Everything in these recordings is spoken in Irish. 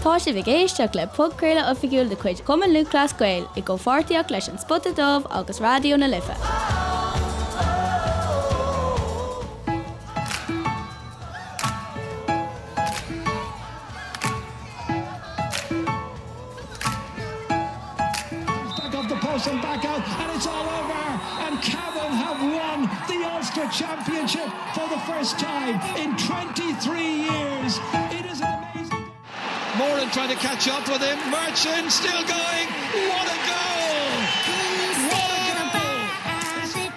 Tá sibh ag éisteacht le podchraoladh oifigiúil de chuid Chumann Lúthchleas Gael i gcomhpháirtíocht leis An Spota Dubh agus Raidió na Life. Back off the post and back out and it's all over and Cavan have won the Ulster Championship for the first time in 23 years. It is an amazing Moran trying to catch up with him. Murchan still going. What a goal! What a goal!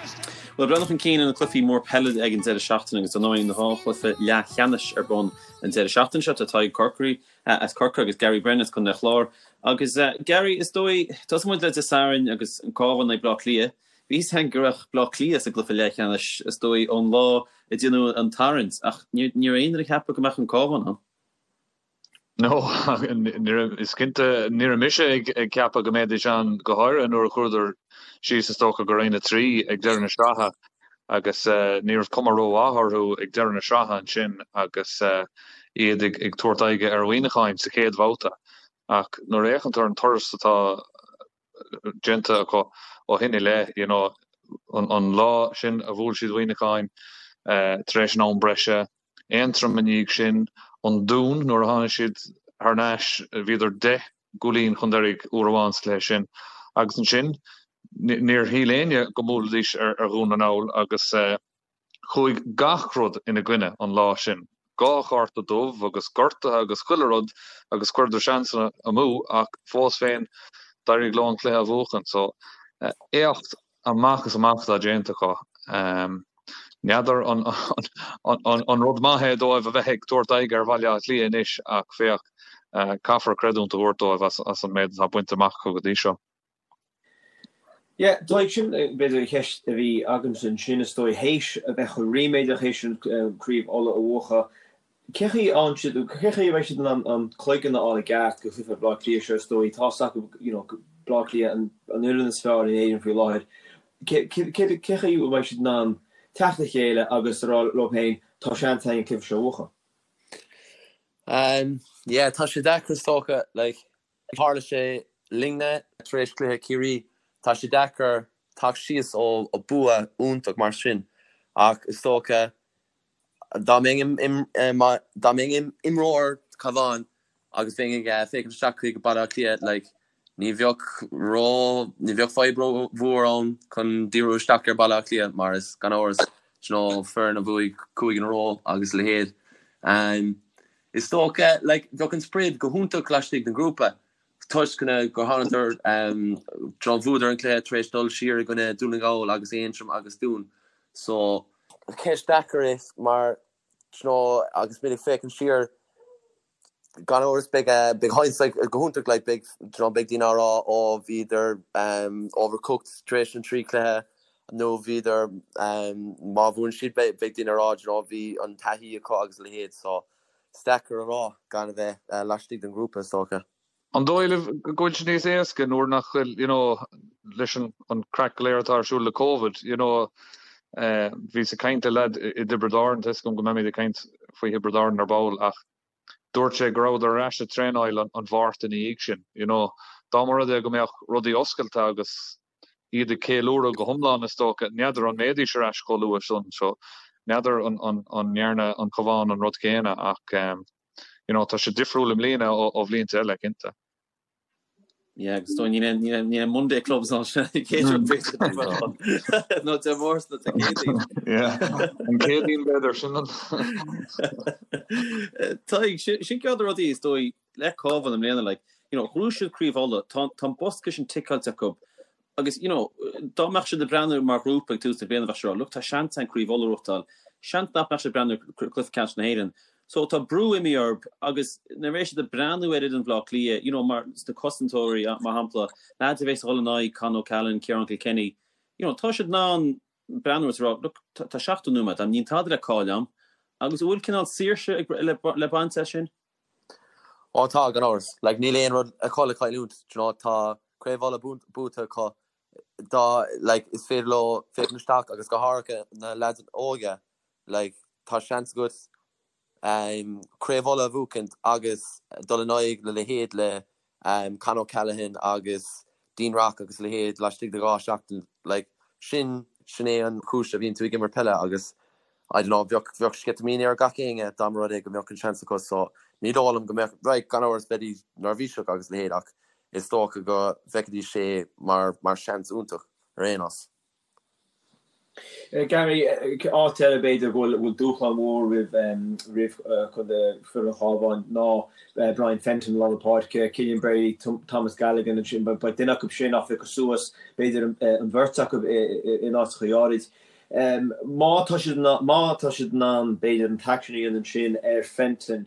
Bhuel, breathnú chun cinn ar na cluichí mór peile ag an deireadh seachtaine agus ar ndóigh na dhá chluiche leathcheannais ar bun an deireadh seachtaine seo. Tá Tadhg Corkery as Corcaigh agus Gary Brennan as Contae an Chláir. Agus Gary, is dóigh, tosóidh muid le Dé Sathairn agus an Cabhán in aghaidh Bleá Cliath. Bhí fhios againn go raibh Bleá Cliath sa gcluiche leathcheannais, is dóigh, ón lá a déanadh an tarraingt, ach ní raibh aon duine ag ceapadh go mbeadh an Cabhán ann. No, is cinnte, ní raibh mise ag ceapadh go mbeidís ann, go háirithe nuair a chuadar síos, is dócha, go Roinn 3 ag deireadh na sraithe. agus ní raibh cuma rómhaith orthu ag deireadh na sraithe ansin agus iad ag tabhairt aghaidhe ar Mhuineacháin sa chéad bhabhta. Ach nuair a fhéachann tú ar an turas atá déanta acu ó shin i leith, you know, an lá sin a bhuail siad Muineacháin tar éis an am breise, Aontroim i ndiaidh sin, an Dún nuair a tháinig siad thar n-ais, bhíodar 10 gcúilín chun deiridh uair amháin sa chluiche sin agus ansin níor shíl éinne go mbuailfidís ar Dhún na nGall agus chuaigh gach rud ina gcoinne an lá sin. Dhá chárta dubh agus gortuithe agus chuile rud agus chuireadar seansanna amú ach fós féin d'éirigh leo an cluiche a bhuachan. So éacht amach is amach atá déanta acu. N'fheadar an rud maith é dóibh a bheith ag tabhairt aghaidh ar Bhaile Átha Cliath anois ach féach, caithfear creidiúint a thabhairt dóibh as an méid atá bainte amach acu go dtí seo. Yeah, Tadhg, sin b'fhéidir an cheist a bhí agamsa ansin is dóigh, théis a bheith chomh ríméadach théis an Craobh Uladh a bhuachan, Cé chaoi a siad, cé chaoi a mbeidh siad in ann an cloigeann a fháil i gceart go chluiche Bhaile Átha Cliath seo is dóigh, tá's acu you know Baile Átha Cliath an fhoireann is fearr in Éirinn faoi láthair. Cé cé chaoi a mbeidh siad in ann teacht le chéile agus a rá leo féin tá seans againn an cluiche seo a bhuachan? Um yeah tá sé deacair is dócha like tharla sé linne tar éis cluiche Ciarraí tá sé deacair teacht síos ó bua iontach mar sin ach is dócha Dá mbeinn dá mbeinn imreoir Cabhán agus bheinn ag féachaint isteach chuig Baile Átha Cliath like ní bheadh ró ní bheadh fadhb ró mhór ann chun díriú isteach ar Baile Átha Cliath mar is gan amhras you know foireann a bhuaigh 5 in a row agus a leithéid. Is dócha like bheadh an sprid go hiontach laistigh den ghrúpa toisc gur thánadar you know bhuadar an cluiche tar éis dul siar i gcoinne Dún na nGall agus Aontroim agus Dún so Ceist deacair é mar you know agus muid ag féachaint siar gan amhras beidh beidh hindsight go hiontach like beidh you know beidh daoine á rá ó bhíodar overcooked tar éis an trí chluiche nó bhíodar má bhuann siad beidh beidh daoine á rá you know bhí an taithí acu agus a leithéid so is deacair a rá gan a bheith laistigh den ghrúpa is dócha. An dóigh libh go bhfuil sé níos éasca nuair nach bhfuil, you know, leis an an craic go léir atá ar siúl le Covid, you know, bhíos ag caint le leaid i dTiobraid Árann, tá 'fhios agam go mbeimid ag caint faoi Thiobraid Árann ar ball ach dúirt sé go rabhadar ar ais ag traenáil an Mháirt ina dhiaidh sin, you know. Dá mba rud é go mbeadh rudaí oscailte agus iad ag ceiliúradh go hiomlán is dócha, n'fheadar an mbeidís ar ais chomh luath sin, so n'fheadar an ndearna an Cabhán an rud céanna ach you know tá sé difriúil i mbliana ó bhlianta eile, cinnte. Yeah, agus dóigh níl aon níl aon níl aon Monday clubs ann sin an chéad rud b'fhéidir nó Dé Máirt nó Dé Céadaoin. Yeah, an Céadaoin b'fhéidir sin an. Tadhg, sin sin ceann de na rudaí is dóigh le Cabhán i mbliana like, you know, ghnóthaigh siad Craobh Uladh, tá tá an bosca sin ticeáilte acu Agus, you know, dá mbeadh siad ag breathnú mar ghrúpa ag tús na bliana, bheadh siad ag rá, look, tá seans againn Craobh Uladh a ghnóthachtáil. Seans nach mbeadh siad ag breathnú ar Cluiche Ceannais na hÉireann. So tá brú imithe orthu agus nuair a bheidh siad ag breathnú ar fhoireann Bhaile Átha Cliath, you know, mar sna cosantóirí, mar shampla, leaids a bheas ag dul in aghaidh Con O'Callaghan, Ciarán Kilkenny, you know, tá siad in ann breathnú agus rá, look, tá 70 nóiméad agam, níl tada le cailleadh agam. Agus an bhfuil cineál saoirse le baint as sin? Ó tá, gan amhras. Like, níl aon rud acu le cailliúint, do you know, tá Craobh Uladh buaite acu, dá, like, is féidir leo féachaint isteach agus go háirithe na leaids óga, like, tá seans agat. Craobh Uladh a bhuachaint agus dul in aghaidh le leithéid le Con O'Callaghan agus Dean Rock agus a leithéid laistigh de 2 seachtain. Like, sin, sin é an chúis a bhíonn tú ag imirt peile agus I don't know, bheadh, bheadh sceitimíní ar gach éinne dá mba rud é go mbeadh an seans acu so ní dóigh liom go mbeadh, right, gan amhras bheidís neirbhíseach agus a leithéid ach is dócha go bhfeicfidís é mar, mar seans iontach ar aon nós. Gary, áit eile b'fhéidir go bhfuil dúshlán mhór roimh roimh chontae foireann an Chabháin ná Brian Fenton i lár na páirce, Cillian Brady, Thomas Galligan ansin, beidh duine acu sin á phiocadh suas, b'fhéidir an bheirt acu in áiteacha áirid. Má tá siad má tá siad in ann b'fhéidir an t-aicsean a dhéanamh ansin ar Fenton,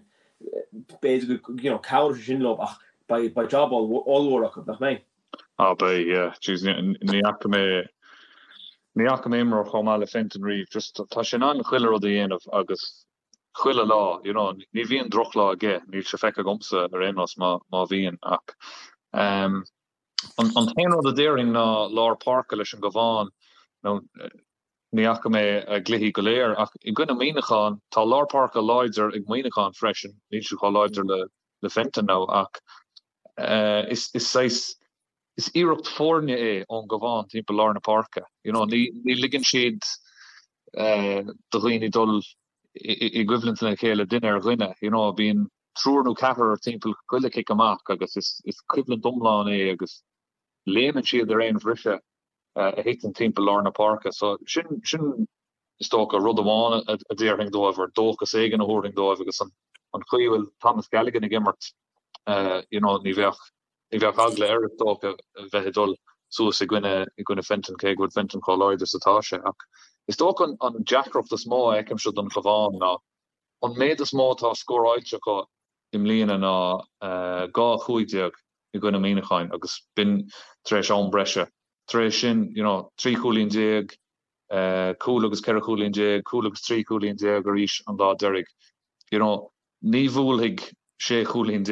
b'fhéidir go you know cabhróidh sé sin leo ach beidh job ollmhór acu, nach mbeidh? Ah beidh, yeah. Jeez, ní fhaca mé, ní fhaca mé imreoir chomh maith le Fenton riamh. Just tá sé in ann chuile rud a dhéanamh agus chuile lá, you know, ní bhíonn drochlá aige, níl sé feicthe agamsa ar aon nós má, má bhíonn ach ehm an, an t-aon rud a déarfainn ná lár páirce leis an gCabhán nó ní fhaca mé a gcluichí go léir ach i gcoinne Muineacháin, tá lár páirce láidir ag Muineachán freisin, níl siad chomh láidir le, le Fenton now ach Is saghas, is iarracht foirne é ón gCabhán timpeall lár na páirce. You know, ní ligeann siad do dhaoine dul i gcoimhlint lena chéile duine ar dhuine. You know, bíonn triúr nó ceathrar timpeall chuile chic amach agus is coimhlint iomlán é agus léimeann siad ar aon bhriseadh a thiteann timpeall lár na páirce. So sin, sin is dócha, rud amháin a déarfainn dóibh, or dóchas éigin a thabharfainn dóibh agus an chaoi a bhfuil Thomas Galligan ag imirt, you know, ní bheadh, ní bheadh eagla air is dócha a bheith ag dul suas i gcoinne, i gcoinne Fenton, cé go bhfuil Fenton chomh láidir is atá sé. Ach is dócha an, an deacracht is mó a fheicimse don Chabhán ná an méid is mó atá scóráilte acu i mbliana ná 2-15 i gcoinne Muineacháin agus b'in tar éis am breise. Tar éis sin, you know, 13 chúilín, cúl agus 14 chúilín, cúl agus 13 chúilín arís an lá deiridh. You know, ní bhuailfidh 16 chúilín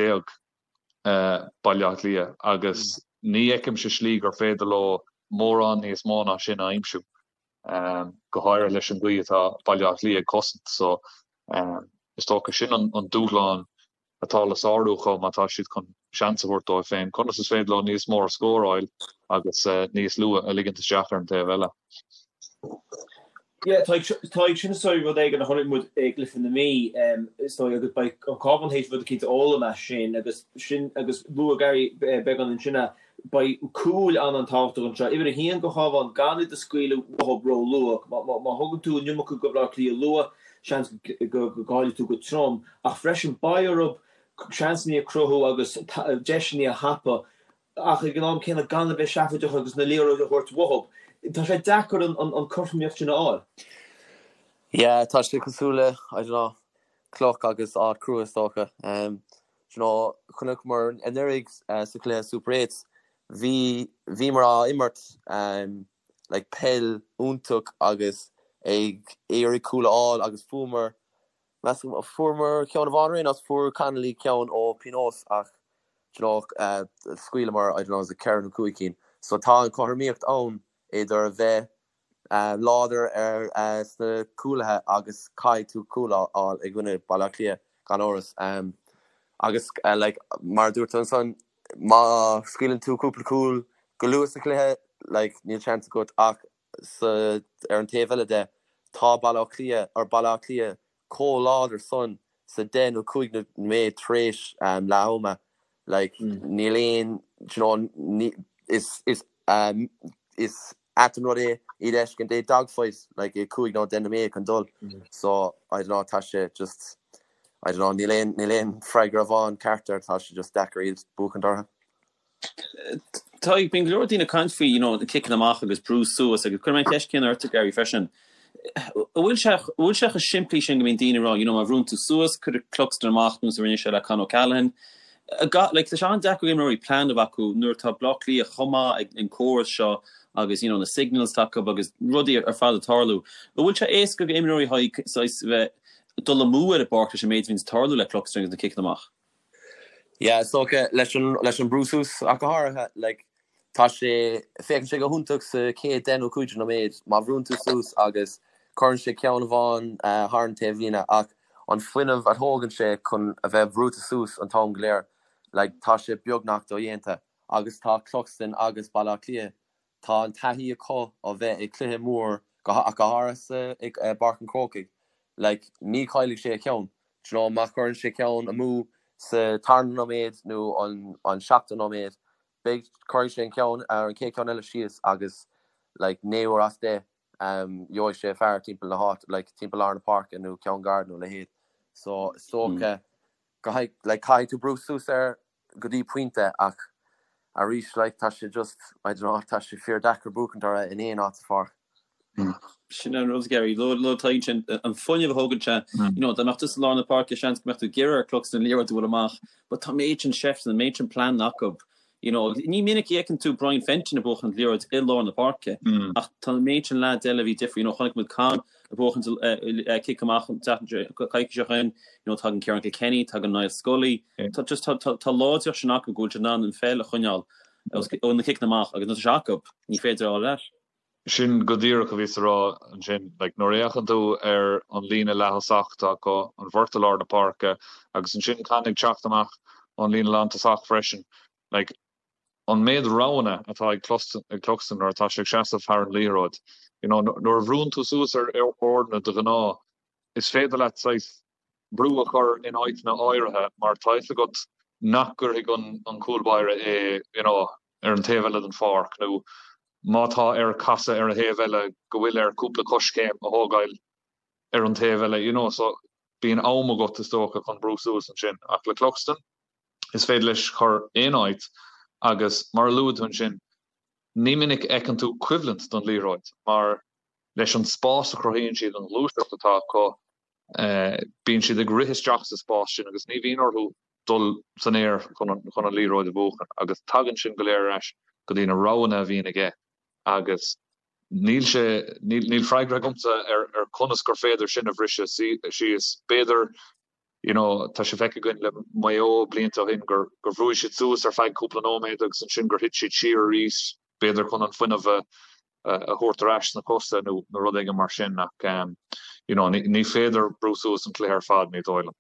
Baile Átha Cliath agus ní fheicimse slí gur féidir leo mórán níos mó ná sin a aimsiú, go háirithe leis an gcaoi atá Baile Átha Cliath ag cosaint. So, is dócha sin an dúshlán atá le sárú acu má tá siad chun seans a thabhairt dóibh féin. Conas is féidir leo níos mó a scóráil agus níos lú a ligint isteach ar an taobh eile? Yeah, tá ag sin is dóigh rud éigin a chonaic muid i gcluiche na Mí, is dóigh, agus beidh an Cabhán théis rud eicínt a fhoghlaim as sin agus sin agus luaigh Gary beagán ansin é, beidh cúil an-an-tábhachtach anseo. Uimhir a haon don Chabhán, gan iad a scaoileadh uathu ró-luath. Má thugann tú an iomarca go Baile Átha Cliath luath, seans go gcaillfidh tú go trom. Ach freisin beidh orthu seansanna a chruthú agus deiseanna a thapú ach ag an am céanna gan a bheith seafóideach agus na liathróid a thabhairt uathu. Tá sé deacair an cothromaíocht sin a fháil. Yeah, tá sé cosúil le, I don't know, cloch agus áit crua is dócha. Do you know, chonaiceamar anuraidh sa chluiche Super Eights, bhí, bhíomar á imirt like peil iontach agus ag iarraidh cúl a fháil agus fuaireamar, Measaim, fuaireamar ceann amháin ar aon nós, fuair Connolly ceann ó pionós ach do you know scaoileamar, I don't know, is it ceithre nó cúig cinn. So tá an chothromaíocht ann idir a bheith láidir ar sna cúlaithe agus caithfidh tú cúl a fháil i gcoinne Baile Átha Cliath gan amhras. Agus like mar a dúirt tú ansan, má scaoileann tú cúpla cúl go luath sa chluiche, like níl seans agat ach sa, ar an taobh eile de, tá Baile Átha Cliath, or Baile Átha Cliath chomh láidir san sa 10 nó 15 nóiméad tar éis leath ama. Like, níl aon, do you know, ní, is, is, is ait an rud é iad a fheiscint i dogfight, like, i 5 nó 10 nóiméad chun dul. So, I don't know, tá sé just, I don't know, níl aon, níl aon freagra amháin ceart air, tá sé just deacair iad buachaint orthu. Tá, bíonn go leor daoine ag caint faoi, you know, na ciceanna amach agus brú suas agus cuirfidh mé an cheist céanna ortsa Gary freisin. An bhfuil sé, an bhfuil sé chomh simplí sin go mbíonn daoine ag rá, you know, má bhrúnn tú suas, cuirfidh Cluxton amach nós a rinne sé le Con O'Callaghan. Like, tá sé an-deacair ag imreoirí plean a bheith acu nuair atá Baile Átha Cliath chomh maith ag an córas seo agus, you know, na signals atá acu agus rudaí ar fad ag tarlú. An bhfuil sé éasca ag imreoirí saghas bheith dul amú ar an bpáirc leis an méid a bhíonns ag tarlú le Cluxton agus na ciceanna amach? Yeah, is dócha, leis an, leis an brú suas ach go háirithe, like, tá sé, féachann sé go hiontach sa chéad 10 nó 15 nóiméad má bhrúnn tú suas agus cuireann sé ceann amháin thar an taobhlíne ach An fuinneamh a thógann sé chun a bheith brúite suas an t-am go léir, like tá sé beagnach dodhéanta. Agus tá Cluxton agus Baile Átha Cliath, tá an taithí acu ó bheith ag cluiche mór, ach go háirithe sa, i bPáirc an Chrócaigh. Like ní chaillfidh sé a cheann. Do you know, má chuireann sé ceann amú sa tarna nóiméad nó an, an seachtú nóiméad, beidh, cuirfidh sé an ceann, an chéad ceann eile síos agus like 9 uair as 10, gheobhaidh sé fear timpeall na háite, like timpeall lár na páirce nó ceann gar nó a leithéid. So is dócha go like caithfidh tú brú suas air go dtí pointe ach arís like tá sé just, I don't know, tá sé fíor deacair buachaint orthu in aon áit sa pháirc. Sin an rud, Gary, luaigh Tadhg ansin, an fuinneamh a thógann sé, you know, dá mbeadh tú sa lár na páirce seans go mbeadh tú ag iarraidh ar Cluxton an liathróid a bhualadh amach, but tá an méid sin seifteanna, an méid sin pleananna acu You know, ní minic a fheiceann tú Brian Fenton ag buachan liathróid i lár na páirce, ach tá an méid sin leaids eile a bhí difriúil. You know, chonaic muid Con ag buachan cic amach an coicís seo chugainn, you know, tagann Ciarán Kilkenny, tagann Niall Scully. Tá just, tá, tá, tá láidreacht sin acu go bhfuil siad in ann an pheil a choinneáil ó na ciceanna amach agus nuair atá sé acu, ní féidir a fháil ar ais. Sin go díreach a bhíos a rá ansin. Like, nuair a fhéachann tú ar an líne leath-thosach atá acu, an bheirt i lár na páirce, agus ansin Con ag teacht amach ón líne lántosach freisin, like, an méid roghanna atá ag Cluxton nuair atá sé ag seasamh thar an liathróid. You know, nuair a bhrúnn tú suas ar fhoirne de ghnáth, is féidir leat saghas brú a chur in áiteanna áirithe mar tá fhios agat nach gcuirfidh an cúl báire é, you know, ar an taobh eile den pháirc nó má tá air casadh ar an thaobh eile go bhfuil air cúpla coiscéim a thógáil ar an taobh eile, you know, so bíonn am agat is dócha chun brú suas ansin. Ach le Cluxton, is féidir leis cur aon áit agus mar a luaigh tú ansin, ní minic a fheiceann tú coimhlint don liathróid mar leis an spás a chruthaíonn siad, an ghluaiseacht atá acu, bíonn siad ag rith isteach sa spás sin agus ní bhíonn orthu dul san aer chun an liathróid a bhuachan agus tagann sin go léir ar ais go dtí na roghanna a bhíonn aige agus níl sé, níl freagra agamsa ar conas gur féidir sin a bhriseadh síos. B'fhéidir, you know, tá sé feicthe againn le Maigh Eo blianta ó shin gur bhrúigh siad suas ar feadh cúpla nóiméad agus ansin gur thit siad siar arís, b'fhéidir chun an fuinneamh a thabhairt ar ais sna cosa nó rud éigin mar sin ach you know ní féidir brú suas an cluiche ar fad, ní dóigh liom.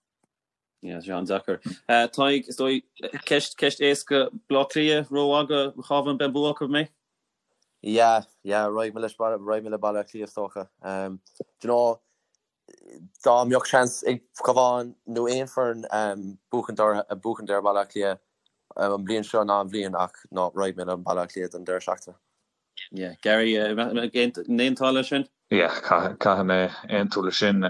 Yeah, sé an-deacair. Tadhg, is dóigh, ceist, ceist éasca, Baile Átha Cliath, ró-mhaith do Chabhán, beidh an bua acu, an mbeidh? Yeah, yeah, raghaidh mé leis, raghaidh mé le Baile Átha Cliath is dócha. Do you know, dá mbeadh seans ag Cabhán nó aon foireann buachaint buachaint ar Bhaile Átha Cliath an bhliain seo ná an bhliain ach no, raghaidh mé le Baile Átha Cliath don deireadh seachtaine. Yeah. Gary, an aontófá leis sin? Yeah, caithfidh mé aontú leis sin.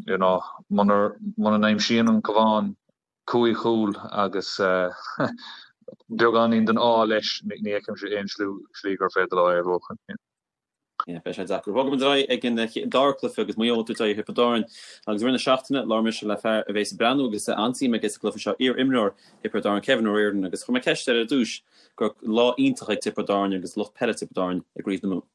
You know, muna n-aimsíonn an Cabhán cúig chúl agus beagáinín den ádh leis, ní fheicimse aon slí gur féidir leo é a bhuachan. Yeah, beidh sé deacair. Bogfaidh muid ar aghaidh ag an dara cluiche agus Maigh Eo ag tabhairt aghaidh ar Thiobraid Árann agus i rith na seachtaine labhair mise le fear a bheas ag breathnú agus an-suim aige sa gcluiche seo, iar-imreoir Thiobraid Árann, Kevin O'Riordan, agus chuir mé ceist air ar dtús go raibh lá iontach ag Tiobraid Árann agus lucht peile Tiobraid Árann i gCraobh na Mumhan.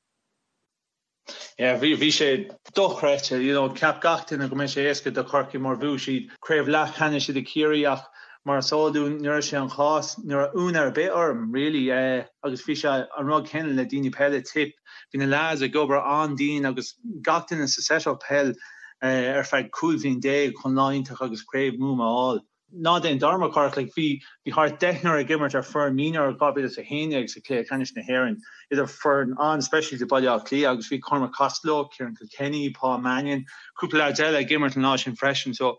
Yeah, bhí, bhí sé dochreidte, you know, cheap gach duine go mbeidh sé éasca do Chorcaigh mar bhuaigh siad craobh leathcheannais idir Ciarraí ach mar is eol dúinn ní raibh sé an chás, ní raibh ionadh ar bith orm really agus bhí sé an rud céanna le daoine peile Tipp, bhí na lads ag obair an-dian agus gach duine sa set-up peil ar feadh 15 bhliain chun lá iontach agus craobh Mumhan a fháil. Ná déan dearmad, Cárthach, like, bhí, bhí thart deichniúr ag imirt ar foireann mionúir 2011 sa Chluiche Ceannais na hÉireann, idir foireann an-speisialta Baile Átha Cliath agus bhí Cormac Costello, Ciarán Kilkenny, Paul Mannion, cúpla leaids eile ag imirt an lá sin freisin. So,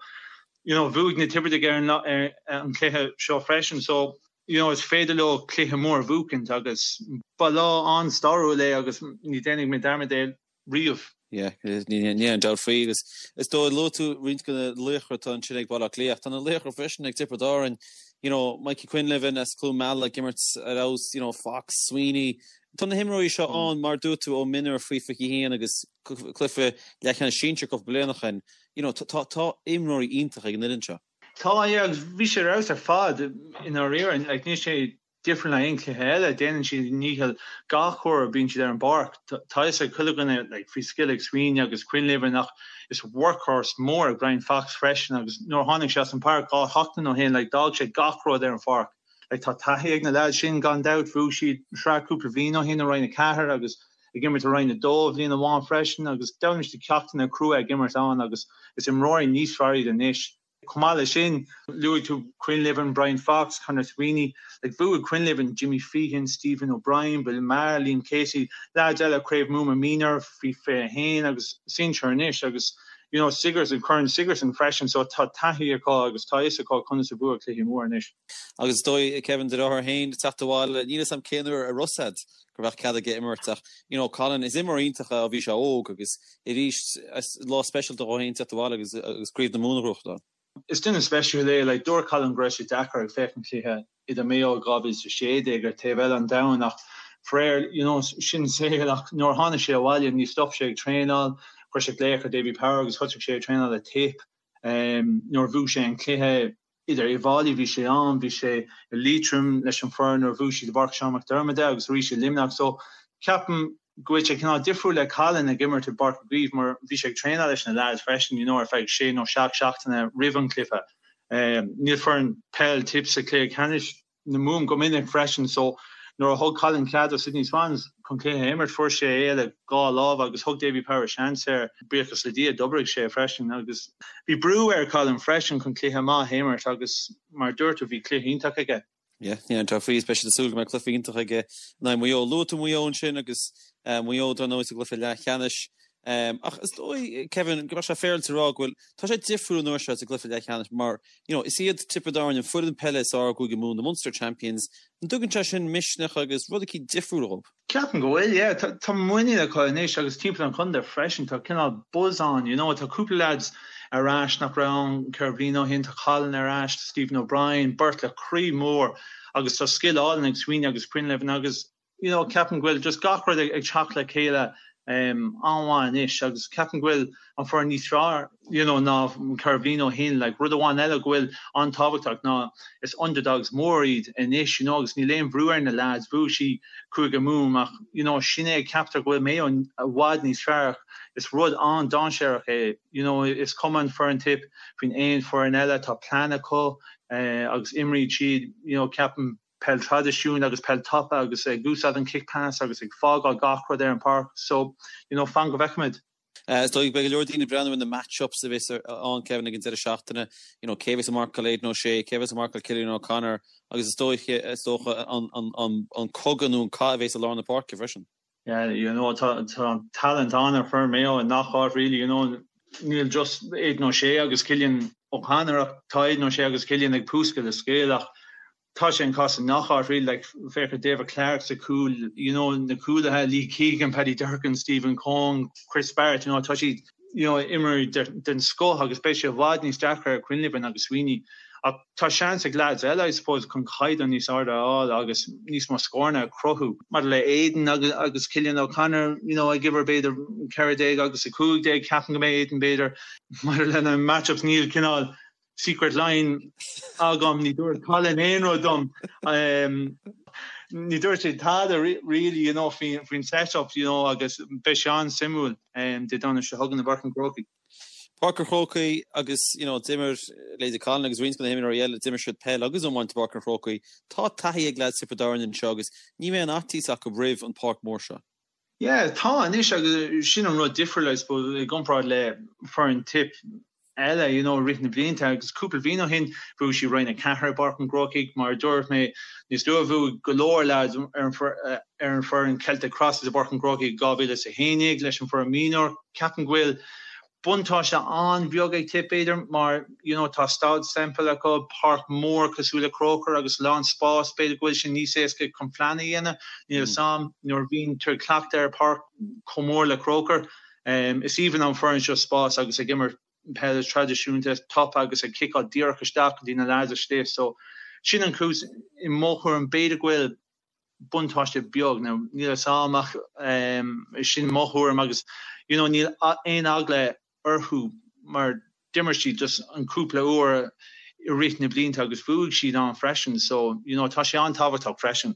you know, bhuaigh na Tiobradaigh ar an, ar an chluiche seo freisin. So, you know, is féidir leo cluiche mór a bhuachaint agus ba lá an-stairiúil é agus ní déanfaidh mé dearmad é riamh. Yeah, ní aon dabht faoi agus is dóigh luaigh tú roinnt de na laochra atá ansin ag Baile Átha Cliath ach tá na laochra freisin ag Tiobraid Árann, you know, Mikey Quinlivan as Cluain Meala ag imirt ar fheabhas, you know, Fox, Sweeney. Tá na himreoirí seo ann mar dúirt tú ó mionúir faoi 21 agus cluiche leathcheannais sinsir cúpla bliain ó shin, you know, tá tá imreoirí iontach ag an fhoireann seo. Tá, yeah, agus bhí sé ar fheabhas ar fad i ndáiríre, like níl sé difriúil ná aon chluiche eile, déanann siad a ndícheall gach uair a bíonn siad ar an bpáirc. Tá a fhios ag chuile dhuine like faoi scil ag Sweeney agus Quinlivan ach is workhorse mór é Brian Fox freisin agus nuair a tháinig sé as an bpáirc 2 sheachtain ó shin like d'fhág sé gach rud ar an pháirc. Like tá taithí ag na lads sin gan dabht, bhuaigh siad sraith cúpla bhliain ó shin i Roinn 4 agus. ag imirt i Roinn 2 bhliain amháin freisin agus d'fhoghlaim siad ceachtanna crua ag imirt ann agus is imreoirí níos fearr iad anois. Chomh maith leis sin, luaigh tú Quinlivan, Brian Fox, Conor Sweeney. Like, bhuaigh Quinlivan, Jimmy Feehan, Stephen O'Brien, Bill Maher, Liam Casey, leaids eile Craobh Mumhan Mionúr faoi 21 agus sinsear anois agus you know Sigerson, Corn Sigerson freisin so tá taithí acu agus tá fhios acu conas a bhua cluichí móra anois. Agus is dóigh, Kevin, do dheartháir féin ag teacht abhaile, níl 'fhios a'm cén uair a raibh 'fhios a'd go raibh cead aige imirt ach you know Colin, is imreoir iontach é ó bhí sé óg agus arís is lá speisialta dhó féin teacht abhaile agus agus Craobh na Mumhan a ghnóthachtáil. Is duine speisiúil é, like dúirt Colin go raibh sé deacair ag féachaint cluiche idir Maigh Eo 2016 ar taobh eile an domhain ach faraor you know sin saol ach nuair a tháinig sé abhaile ní stop sé ag traenáil, chuir sé glaoch ar Davy Power agus thosaigh sé ag traenáil le Tip nuair a bhuaigh sé an cluiche idir Uíbh Fhailí bhí sé ann, bhí sé i Liatroim leis an foireann nuair a bhuaigh siad i bPáirc Seán Mac Diarmada agus arís i Luimneach so ceapaim go bhfuil sé cineál difriúil le Colin ag imirt i bPáirc Uí Chaoimh mar bhí sé ag traenáil leis na lads freisin you know ar feadh sé nó seacht seachtaine roimh an cluiche. Níl foireann peil Tip sa chluiche ceannais na Mumhan go minic freisin so nuair a thug Colin cead do Sydney Swans chun cluiche a imirt fuair sé é le dhá lámh agus thug Davy Power seans air. Buíochas le Dia d'oibrigh sé freisin agus bhí brú ar Colin freisin chun cluiche maith a imirt agus mar a dúirt tú bhí cluiche iontach aige. Yeah, níl aon dabht faoi, is beidh siad ag súil go mbeidh cluiche iontach aige in aghaidh Mhaigh Eo. Luaigh tú Maigh Eo ansin agus Maigh Eo dar ndóigh sa gcluiche leathcheannais. Ach is dóigh, Kevin, go mbeadh sé féaráilte a rá go bhfuil, tá sé difriúil an uair seo sa gcluiche leathcheannais mar, you know, is iad Tiobraid Árann an foireann peile is fearr i gCúige Mumhan, the Munster Champions. An dtugann sé sin misneach agus rud eicínt difriúil dhóibh? Ceapaim go bhfuil, yeah. Tá muinín acu anois agus timpeall an chontae freisin. Tá cineál buzz ann, you know. Tá cúpla lads ar ais nach raibh ann ceithre bliana ó shin. Tá Colin ar ais, tá Stephen O'Brien, beirt le croí mór agus tá scil álainn ag Sweeney agus Quinlivan agus, you know, ceapaim go bhfuil just gach rud ag teacht le chéile an-mhaith anois agus ceapaim go bhfuil an foireann níos fearr you know ná ceithre bliana ó shin. Like rud amháin eile go bhfuil an-tábhachtach ná is underdogs mór iad anois you know agus níl aon bhrú ar na lads. Bhuaigh siad Cúige Mumhan ach you know sin é ceaptar go bhfuil Mayo i bhfad níos fearr ach is rud an-dainséarach é you know is cuma an foireann Tip faoin aon foireann eile tá plean acu agus imríonn siad you know ceapaim peil traidisiúnta agus peil tapa agus ag úsáid an kick pass agus ag fágáil gach rud ar an páirc so you know fan go bhfeicfimid. Is dóigh beidh go leor daoine ag breathnú ar na match-ups a bheas ann, Kevin, ag an deireadh seachtaine. You know, cé a bheas ag marcáil Aidan O'Shea, cé a bheas ag marcáil Cillian O'Connor agus is dóiche, is dócha, an, an, an, an cogadh nó an cath a bheas i lár na páirce freisin. Yeah, you know, tá, tá talent ann ar foireann Mayo i ngach áit really, you know, níl just Aidan O'Shea agus Cillian O'Connor ach tá Aidan O'Shea agus Cillian ag púscadh le scil ach tá sé an cás i ngach áit really, like féach ar David Clarke sa chúl, you know, na cúlaithe, Lee Keegan, Paddy Durcan, Stephen Coen, Chris Barrett, you know, tá siad, you know, imreoirí den scoth agus beidh sé i bhfad níos deacra ar Quinlivan agus Sweeney. Ach tá seans ag leaids eile, I suppose, chun caighdeán níos airde a fháil agus níos mó scóranna a chruthú. Maidir le Aidan agus agus Cillian O'Connor, you know, ag uimhir b'fhéidir 14 agus 15, ceapaim go mbeidh Aidan b'fhéidir maidir lena match-ups níl cineál secret line agam, ní dúirt Colin aon rud dom. Ní dúirt sé tada really, you know, faoin faoin set-up, you know, agus beidh sé an-suimiúil Dé Domhnaigh seo chugainn i bPáirc an Chrócaigh. Páirc an Chrócaigh agus, you know, d'imir leithéidí Colin agus roinnt de na himreoirí eile, d'imir siad peil agus iomáint i bPáirc an Chrócaigh. Tá taithí ag leaids Thiobraid Árann anseo agus ní bheidh aon fhaitíos acu roimh an pháirc mhór seo. Yeah, tá anois agus sin an rud difriúil I suppose i gcomparáid le foireann Tip eile you know i rith na blianta agus cúpla bliain ó shin bhuaigh siad Roinn 4 i bPáirc an Chrócaigh mar a dúirt mé níos luaithe bhuaigh go leor lads ar an ar an foireann Celtic Crosses i bPáirc an Chrócaigh i 2011 leis an foireann mionúr. Ceapaim go bhfuil buntáiste an-bheag ag Tip b'fhéidir mar you know tá Staid Semple acu, páirc mór cosúil le Croker agus a lán spás, b'fhéidir go bhfuil sé níos éasca chun plean a dhéanamh, níl 'fhios a'm, nuair a bhíonn tú ag cleachtadh ar páirc chomh mór le Croker. Is aoibhinn an foireann seo spás agus ag imirt peil traidisiúnta tapa agus ag ciceáil díreach isteach go dtí na lads istigh so sin an chúis i mo thuairim b'fhéidir go bhfuil buntáiste beag. Now níl 'fhios a'm ach sin mo thuairim agus you know níl aon eagla orthu mar d'imir siad just an cúpla uair i rith na blianta agus bhuaigh siad ann freisin so you know tá sé an-tábhachtach freisin.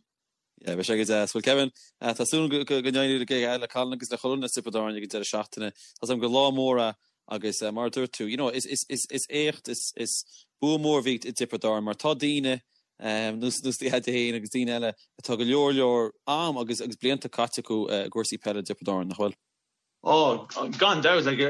Yeah, beidh sé go deas. Well Kevin, tá súil go n-éireoidh le Colin agus le chuile dhuine as Tiobraid Árann ag an deireadh seachtaine. Tá 's agam gur lá mór é agus mar a dúirt tú, you know, is is is is éacht, is is bua mór a bhí i dTiobraid Árann mar tá daoine. Nós do dhaid féin agus daoine eile atá go leor leor am agus agus blianta caite acu i gcúrsaí peile i dTiobraid Árann, nach bhfuil? Ó, gan dabht, like,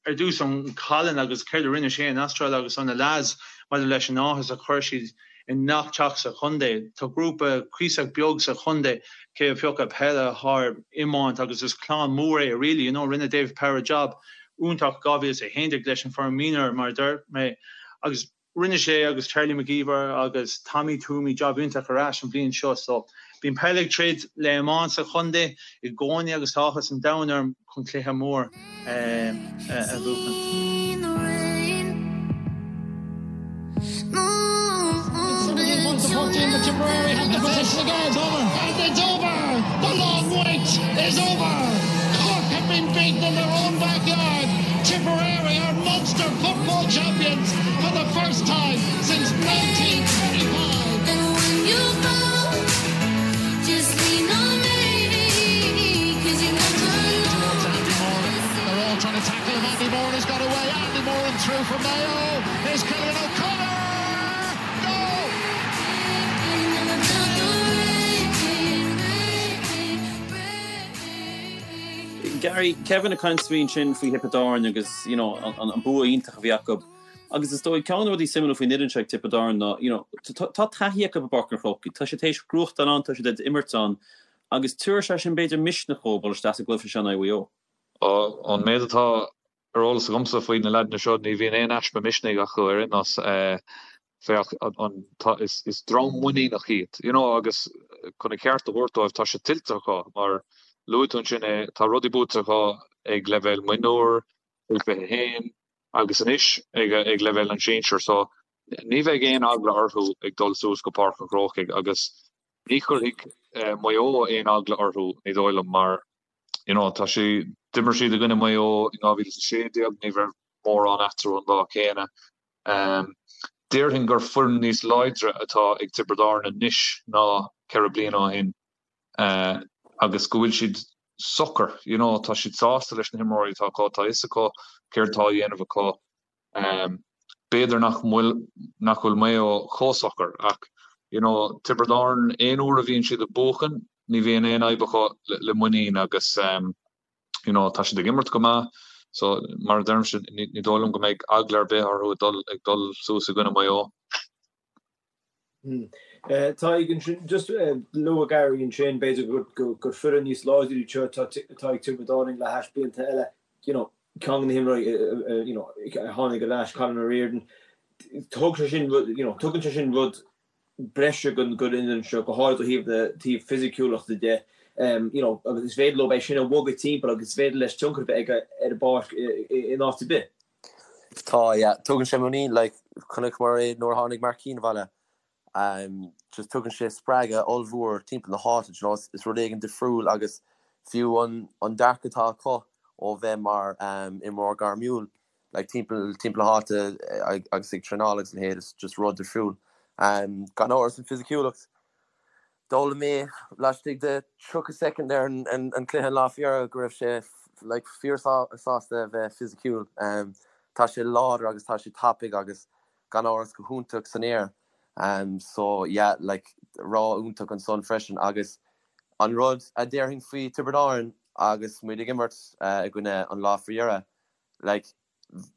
ar dtús an Colin agus céard a rinne sé in Astráil agus na lads maidir leis an áthas a chuir siad i ngach teach sa chontae. Tá grúpa cuíosach beag sa chontae cé a phiocadh peile thar iomáint agus is clann mór é really, you know, rinne David Power job iontach 2011 leis an foireann mionúir mar a deir mé agus Rinne sé agus Charlie McGeever agus Tommy Twomey jab iontach ar ais an bhliain seo so bíonn peil ag troid le iomáint sa chontae i gcónaí agus tá áthas an domhain orm chun cluiche mór a bhuachan. For the first time since 1925. And when you fall, just lean on me, 'cause you never know. Towards Andy Moran. They're all trying to tackle him. Andy Moran has got away. Andy Moran through for Mayo. Here's Cillian O'Connor. No! Gary, Kevin ag caint faoi ansin faoi Thiobraid Árann agus you know an bua iontach a bhí acu agus is dóigh ceann de na rudaí suimiúla faoin fhoireann seo ag Tiobraid Árann ná you know tá taithí acu i bPáirc an Chrócaigh, tá siad théis gnóthachtáil ann, tá siad ag imirt ann agus tabharfaidh sé sin b'fhéidir misneach dóibh dul isteach sa gcluiche seo in aghaidh Mhaigh Eo. Ón méid atá ar eolas agamsa faoi na leaideanna seo, ní bhíonn aon easpa misnigh acu ar aon nós. Féach, an, tá, is, is dream muiníneach iad, you know, agus chun a cheart a thabhairt dóibh, tá sé tuillte acu, mar luaigh tú ansin é, tá rudaí buaite acu ag leibhéal mionúr, faoi 21, agus anois ag, ag leibhéal an sinsir, so ní bheidh aon eagla orthu ag dul suas go Páirc an Chrócaigh agus ní chuirfidh Maigh Eo aon eagla orthu, ní dóigh liom, mar, you know, tá sé, d'imir siad i gcoinne Maigh Eo in 2016, ní raibh mórán eatarthu an lá céanna. Déarfainn gur foireann níos láidre atá ag Tiobraid Árann anois ná 4 bliana ó shin agus go bhfuil siad socair, you know, tá siad sásta leis na himreoirí atá acu, tá a fhios acu céard atá á dhéanamh acu. B'fhéidir nach bhfuil nach bhfuil Maigh Eo chomh socair ach, you know, Tiobraid Árann aon uair a bhíonn siad ag buachan ní bhíonn aon fhadhb acu le muinín agus, you know tá siad ag imirt go maith so mar a deirimse ní ní dóigh liom go mbeidh eagla ar bith orthu ag dul ag dul suas i gcoinne Mhaigh Eo. Tadhg ansin just luaigh Gary ansin b'fhéidir gur gur gur foireann níos láidre iad seo atá atá ag Tiobraid Árann le hais blianta eile you know ceann de na himreoirí you know a tháinig ar ais Colin O'Riordan thug sé sin rud you know tugann sé sin rud breise don fhoireann seo, go háirid ó thaobh na taobh fisiciúlachta de, you know, agus is féidir leo é sin a bhogadh timpeall agus is féidir leis tionchar a bheith aige ar an bpáirc in áit ar bith. Tá, yeah. Tugann sé muinín, like, chonaiceamar é nuair a tháinig Mark Keane abhaile. Um, just tugann sé spreagadh ollmhór timpeall na háite, you know, is rud éigin difriúil agus fiú an, an dearcadh atá acu ó bheith mar um, imreoir gairmiúil, like timpeall timpeall na háite agus ag traenáil agus a leithéid is just rud difriúil. Gan amhras an fisiciúlacht. D'fhoghlaim mé laistigh de 30 soicind ar an an cluiche an lá faoi dheireadh go raibh sé like fíor sásta a bheith fisiciúil. Tá sé láidir agus tá sé tapaidh agus gan amhras go hiontach san aer. So yeah like rogha iontach ansan freisin agus an rud a déarfainn faoi Tiobraid Árann agus muid ag imirt i gcoinne an lá faoi dheireadh like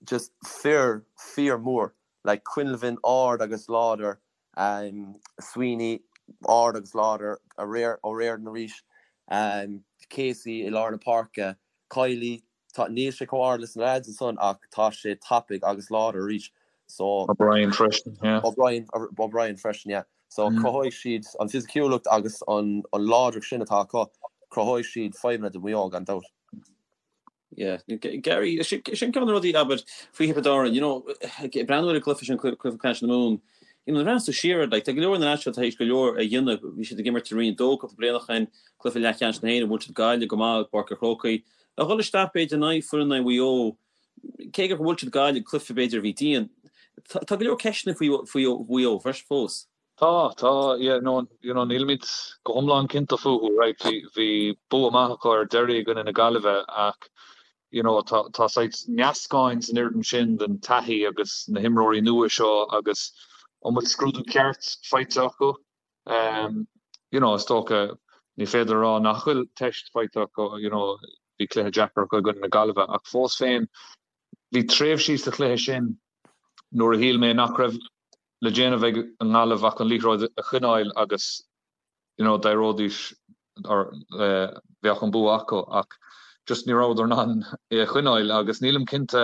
just fir fíor mór like Quinlivan ard agus láidir um Sweeney ard agus láidir O'Riordan arís um Casey i lár na páirce Kiely tá níl sé chomh ard leis na lads ansan ach tá sé tapaidh agus láidir arís so O'Brien freisin yeah. O'Brien O'Brien freisin yeah so cruthóidh siad an fisiciúlacht agus an an láidreacht sin atá acu cruthóidh siad fadhbanna do Mhaigh Eo gan dabht. Yeah. Gary, sin ceann de na rudaí, abair, faoi Thiobraid Árann, you know, ag breathnú ar an gcluiche sin, cluiche ceannais na Mumhan, you know, nuair a bhreathnaíonn tú siar air, like, tá go leor na lads seo tar éis go leor a dhéanamh, bhí siad ag imirt i Roinn 2 cúpla bliain ó shin, cluiche leathcheannais na hÉireann, bhuail siad Gaillimh go maith i bPáirc an Chrócaigh, a dhul isteach b'fhéidir in aghaidh foireann Mhaigh Eo, cé gur bhuail siad Gaillimh, cluiche b'fhéidir a bhí dian, tá go leor ceisteanna faoi faoi Mhaigh Eo freisin fós. Tá, tá, yeah, no, you know, nílimid go hiomlán cinnte fúthu, right, bhí, bhí bua maith acu ar deireadh i gcoinne na Gaillimhe ach, you know, tá, tá saghas meascán san fhoireann sin den taithí agus na himreoirí nua seo agus. An bhfuil scrúdú ceart faighte acu? You know, is dócha, ní féidir a rá nach bhfuil teist faighte acu, you know, bhí cluiche deacair acu i gcoinne na Gaillimhe ach fós féin, bhí tréimhsí sa chluiche sin nuair a shíl mé nach raibh le déanamh ag an nGaillimh ach an liathróid a choinneáil agus you know d'éireoidís or bheadh an bua acu ach just ní rabhadar in ann é a choinneáil agus nílim cinnte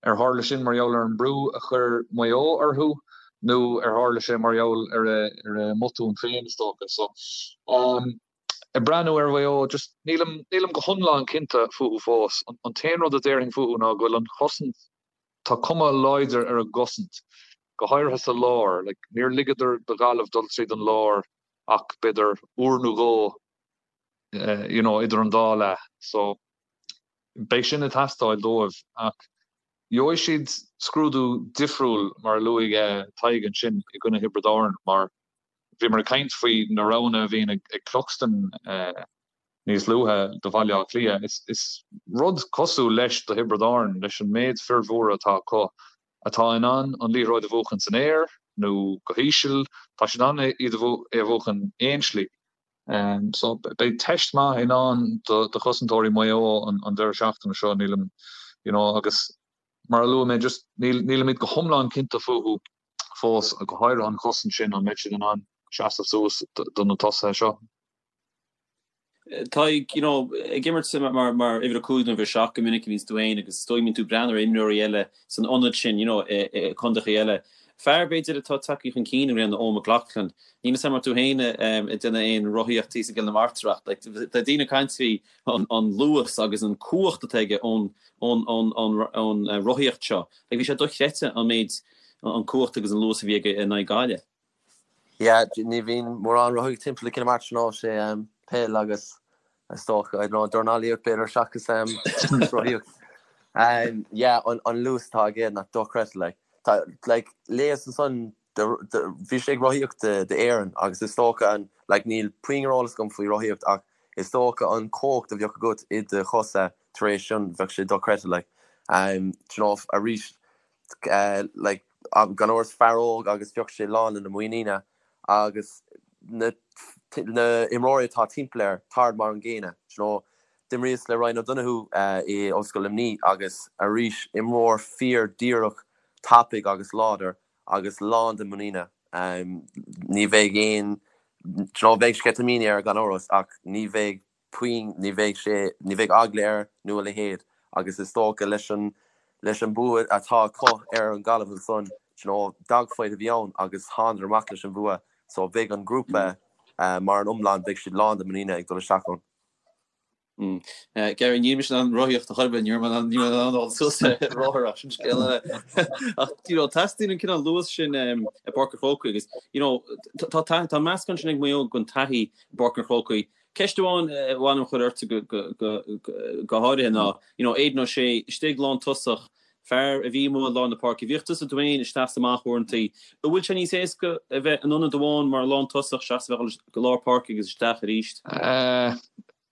ar tharla sin mar gheall ar an mbrú a chuir Maigh Eo orthu nó ar tharla sé mar gheall ar a ar a mbotún féin is dócha. So um ag breathnú ar Mhaigh Eo just nílim nílim go hiomlán cinnte fúthu fós. An an t-aon rud a déarfainn fúthu ná go bhfuil an chosaint Tá cuma láidir ar a gcosaint, go háirithe sa lár. Like, níor ligeadar do Ghaillimh dul tríd an lár ach b'fhéidir uair nó dhó, you know, idir an dá leath. So, beidh sin ag teastáil dóibh. Ach gheobhaidh siad scrúdú difriúil, mar a luaigh Tadhg ansin, i gcoinne Thiobraid Árann, mar bhíomar ag caint faoi na roghanna a bhíonn ag Cluxton. níos luaithe do Bhaile Átha Cliath. Is rud cosúil leis do Thiobraid Árann, leis an méid fir mhóra atá acu, atá in ann an liathróid a bhuachan san aer nó go híseal, tá siad in ann iad é a bhuachan aon slí. So beidh teist maith i ndán do chosantóirí Mhaigh Eo an deireadh seachtaine seo, nílim, you know, agus mar a luaigh mé, just nílimid go hiomlán cinnte fúthu fós, go háirithe an chosaint sin, an mbeidh siad in ann seasamh suas do na tosaithe seo. Tadhg, you know, ag imirt mar mar uimhir a 5 nó uimhir 7 go minic a bhíonns tú fhéin agus is dóigh go mbíonn tú ag breathnú ar imreoirí eile san ionad sin, you know, i contaetha eile. Fear, b'fhéidir, atá tagtha chun cinn i mbliana, Eoin McLaughlin. Níl 'fhios a'm an raibh tú fhéin ag déanamh aon rothaíocht thíos i gCill na Martra ach like tá daoine ag caint faoi an an luas agus an cumhacht atá aige ón ón ón ón ón rothaíocht seo. Like bhí sé dochreidte an méid an cumhacht agus an luas a bhí aige in aghaidh Gaillimh. Yeah, ní bhíonn mórán rothaíocht timpeall i gCill na Martra ná sé peil agus is dócha, I don't know, dornálaíocht b'fhéidir seachas rothaíocht. Yeah, an luas atá aige ná dochreidte like. Tá like léas ansan bhí sé ag rothaíocht d'Éirinn agus is dócha an like níl puinn ar eolas agam faoi rothaíocht ach is dócha an cumhacht a bheadh agat i do chosa tar éis sin bheadh sé dochreidte like. Do you know arís like gan amhras fear óg agus bheadh sé lán lena muiníne agus na na imreoirí atá timpeall air táid mar an gcéanna you know. D'imríos le Ryan O'Donoghue i Ollscoil Luimnigh agus arís imreoir fíor díreach tapaidh agus láidir agus lán de muiníne. Ní bheidh aon you know beidh sceitimíní air gan amhras ach ní bheidh puinn, ní bheidh sé, ní bheidh eagla air nó a leithéid agus is dócha leis an, leis an bua atá acu ar an Gaillimh ansan, you know, dogfight a bhí ann agus thánadar amach leis an bhua so beidh an grúpa mar an iomlán, beidh siad lán de muiníne ag dul isteach ann. Gary, níl mise in ann rothaíocht a chor ar bith, ní raibh mé in ann, ní raibh mé in ann dul suas ar rothar ach sin scéal eile. Ach, you know, teastaíonn an cineál luas sin i bPáirc an Chrócaigh agus, you know, tá, tá, tá meascán sin ag Maigh Eo den taithí i bPáirc an Chrócaigh. Ceist amháin a mhaith liom a chur ortsa go háirithe ná, you know, Aidan O'Shea, istigh lántosach, fear a bhí amuigh i lár na páirce, bhíodh tusa tú féin isteach is amach uaireantaí. An bhfuil sé níos éasca a bheith in ionad amháin mar lántosach seachas a bheith ag dul go lár páirce agus isteach arís?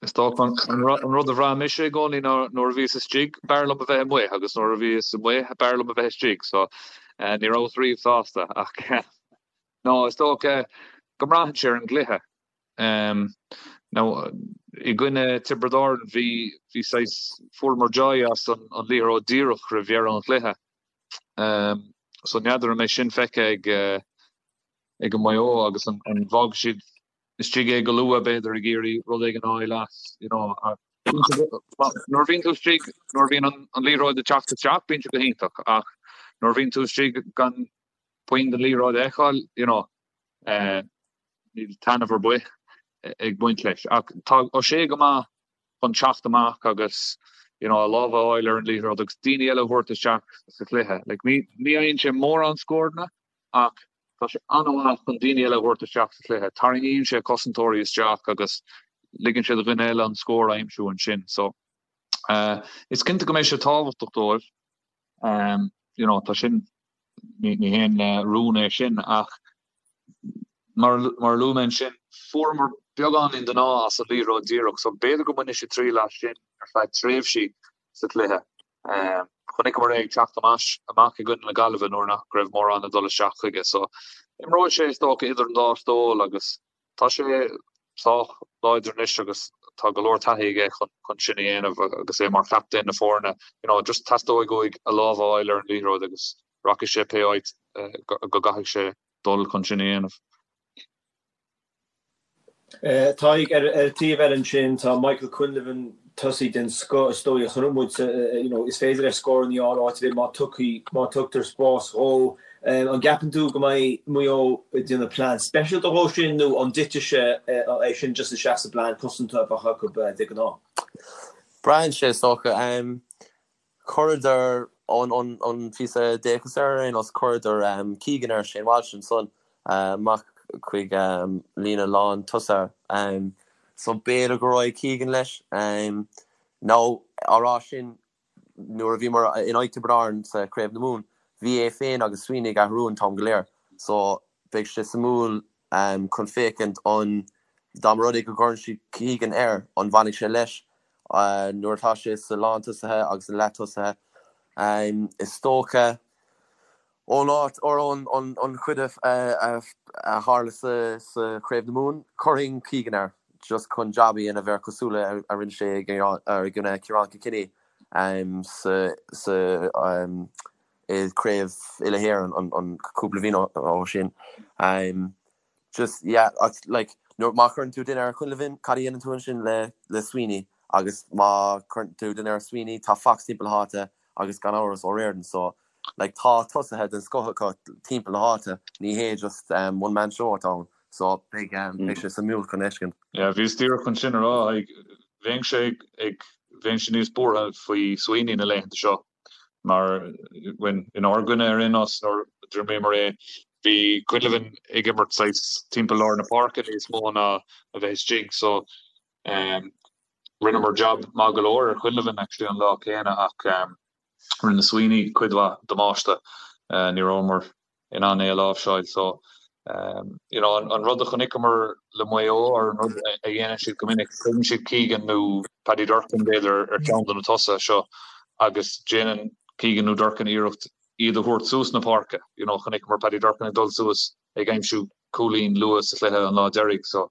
Is dócha an rud a bhraith mise i gcónaí ná nuair a bhíos istigh, b'fhearr liom a bheith amuigh agus nuair a bhíos amuigh, b'fhearr liom a bheith istigh. So, ní rabhas riamh sásta ach no, is dócha go mbraitheann sé ar an gcluiche. Now, i gcoinne Tiobraid Árann, bhí, bhí saghas, fuaireamar joy as an liathróid díreach roimh dheireadh an chluiche. So n'fheadar an mbeidh sin feicthe ag, ag an Maigh Eo agus an, an bhfágfaidh siad istigh é go luath b'fhéidir ag iarraidh rud éigin a fháil as, you know. Nuair a bhíonn tú istigh, nuair a bhíonn an, an liathróid ag teacht isteach, bíonn sé go hiontach ach nuair a bhíonn tú istigh gan puinn den liathróid a fheiceáil, you know, Níl taitneamh ar bith ag baint leis. Ach tá O'Shea go maith chun teacht amach agus you know a lámh a fháil ar an liathróid agus daoine eile a thabhairt isteach sa chluiche. Like ní ní fhaigheann sé mórán scóranna ach tá sé an-mhaith chun daoine eile a thabhairt isteach sa chluiche. Tarraingíonn sé cosantóirí isteach agus ligeann sé do dhuine eile an scór a aimsiú ansin. So uh, is cinnte go mbeidh sé tábhachtach dóibh. Um, you know, tá sin ní ní haon rún é sin ach Mar a luaigh mé ansin, fuaireamar beagáinín den ádh as an liathróid díreach so b'fhéidir go mbainfidh siad triail as sin ar feadh tréimhsí sa chluiche. Chonaiceamar é ag teacht amach i gcoinne na Gaillimhe nuair nach raibh mórán ag dul isteach chuige so imreoidh sé is dócha idir an dá stól agus tá sé sách láidir anois agus tá go leor taithí aige chun sin a dhéanamh agus é mar chaptaen na foirne. You know, just teastóidh uaidh a lámh a fháil ar an liathróid agus rachaidh sé pé áit go gcaithfidh sé dul chun sin a dhéanamh. Tadhg, ar an taobh eile ansin, tá Michael Quinlivan, tosaí den scoth is dóigh a chonaic muid, you know, is féidir leis scóranna a fháil áit ar bith má tugtha, má tugtar spás dhó. An gceapann tú go mbeidh Maigh Eo ag déanamh plean speisialta dhó sin nó an dtitfidh sé é sin just isteach sa bplean cosanta a bheadh acu de ghnáth? Braitheann sé is dócha. Chuireadar an píosa d'fhéachas air ar aon nós, chuireadar Keegan ar Shane Walsh ansan amach chuig líne lán tosaithe. So b'fhéidir go raghaidh Keegan leis. Nó á rá sin, nuair a bhíomar in aghaidh Tiobraid Árann sa Chraobh na Mumhan, bhí é féin agus Sweeney ag athrú an t-am go léir. So beidh sé suimiúil chun féachaint an dá mba rud é go gcuireann siad Keegan air, an bhfanfaidh sé leis nuair atá sé sa lántosaithe agus na leath-tosaithe. Is dócha ón áit or ón an chuid a tharla sa Chraobh na Mumhan, chuirfinn Keegan air just chun jab a dhéanamh air cosúil le a rinne sé i gcoinne Ciarán Kilkenny sa i Craobh Uile-Éireann an cúpla bhliain ó sin. Just, yeah, like, nuair, má chuireann tú duine ar Quinlivan, cad a dhéanann tú ansin le, le Sweeney? Agus má chuireann tú duine ar Sweeney, tá Fox timpeall na háite agus gan amhras O'Riordan, so, like, tá tosaithe den scoth acu timpeall na háite, ní hé just um, one man show atá ann, so beidh, um, beidh sé suimiúil chun fheiscint. Yeah, bhíos díreach chun sin a rá, like, bheinnse ag, bheinnse níos buartha faoi Sweeney na laethanta seo. Mar inár gcoinne ar aon nós, nuair a d'imríomar é, bhí Quinlivan ag imirt saghas timpeall lár na páirce níos mó ná a bheith istigh so rinneamar jab maith go leor ar Quinlivan actually an lá céanna ach rinne Sweeney cuid mhaith damáiste. Ní rabhamar in ann é a láimhseáil. So, you know, an rud a chonaiceamar le Maigh Eo, or an rud a dhéanann siad go minic, cuireann siad Keegan nó Paddy Durcan, b'fhéidir, ar cheann de na tosaithe seo agus déanann Keegan nó Durcan iarracht iad a thabhairt suas na páirce. You know, chonaiceamar Paddy Durcan ag dul suas ag aimsiú cúilín luath sa chluiche an lá deiridh. So,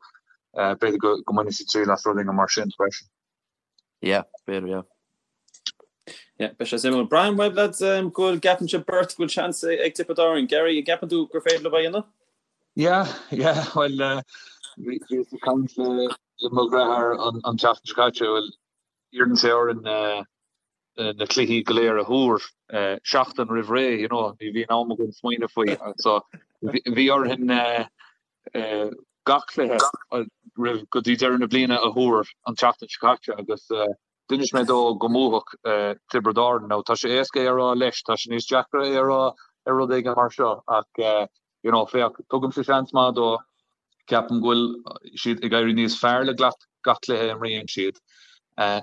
b'fhéidir go mbainfidh siad triail as rud éigin mar sin freisin. Yeah, b'fhéidir, yeah. Yeah, beidh sé suimiúil. Braithim uaibh lads go bhfuil gceapann sibh beirt go bhfuil seans ag Tiobraid Árann. Gary, an gceapann tú gur féidir leo é a dhéanamh? Yeah, yeah, well, uh, bhíos ag caint le le mo dheartháir an, an tseachtain seo caite, well, iarrann sé orainn uh, na cluichí go léir a thuar uh, seachtain roimh ré, you know, ní bhíonn am againn smaoineamh faoi. So, bhí orainn uh, gach cluiche roimh go dtí deireadh na bliana a thuar an tseachtain seo caite agus d'inis mé dó go mbuafadh Tiobraid Árann. Now tá sé éasca é a rá leis, tá sé níos deacra é a rá ar rud éigin mar seo ach you know féach, tugaimse seans maith dó, ceapaim go bhfuil siad ag éirí níos fearr le gach cluiche a imríonn siad.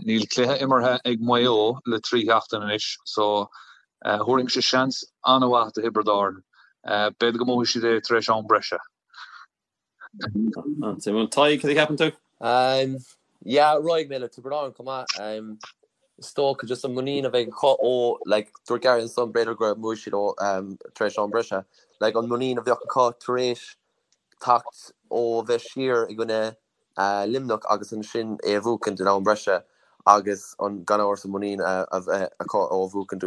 Níl cluiche imeartha ag Maigh Eo le 3 sheachtain anois so thabharfainnse seans an-mhaith do Thiobraid Árann. B'fhéidir go mbuafaidh siad é tar éis am breise. An-suimiúil. Tadhg, cad a cheapann tú? Yeah, raghaidh mé le Tiobraid Árann chomh maith. Is dócha just an muinín a bheidh acu ó, like, dúirt Gary ansan b'fhéidir go mbuafaidh siad ó tar éis am breise. Like, an muinín a bheadh acu tar éis teacht ó bheith siar i gcoinne Luimneach agus ansin é a bhuachaint in am breise agus an gan amhras an muinín a bheith acu ó bhuachaint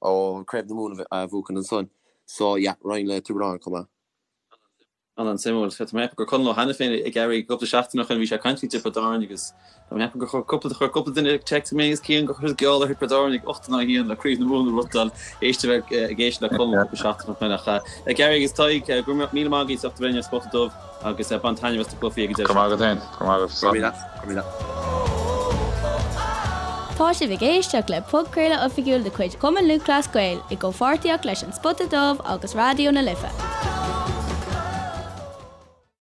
ó Craobh na Mumhan a bhuachaint ansan. So yeah, raghainn le Tiobraid Árann chomh maith. An-suimiúil. Tá mé ag ceapadh gur Conall Ó hAiniféin ag Gary cúpla seachtain ó shin bhí sé ag caint faoi Tiobraid Árann agus tá mé ag ceapadh gur chuir cúpla chuir cúpla duine text mé agus Cian gur chuir geall ar Thiobraid Árann ag 8 in aghaidh 1 le Craobh na Mumhan a bhuachtáil éist a bheith ag éisteacht le Conall cúpla seachtain ó shin ach Gary agus Tadhg go raibh míle maith agaibh as ucht a bheith linn ar Spota Dubh. Agus bain taitneamh as na cluichí ag an deireadh Go raibh maith agat féin. Go raibh maith agat. Go raibh míle. Go raibh míle. Tá sibh ag éisteacht le podchraoladh oifigiúil de chuid Chumann Lúthchleas Gael i gcomhpháirtíocht leis An Spota Dubh agus Raidió na Life.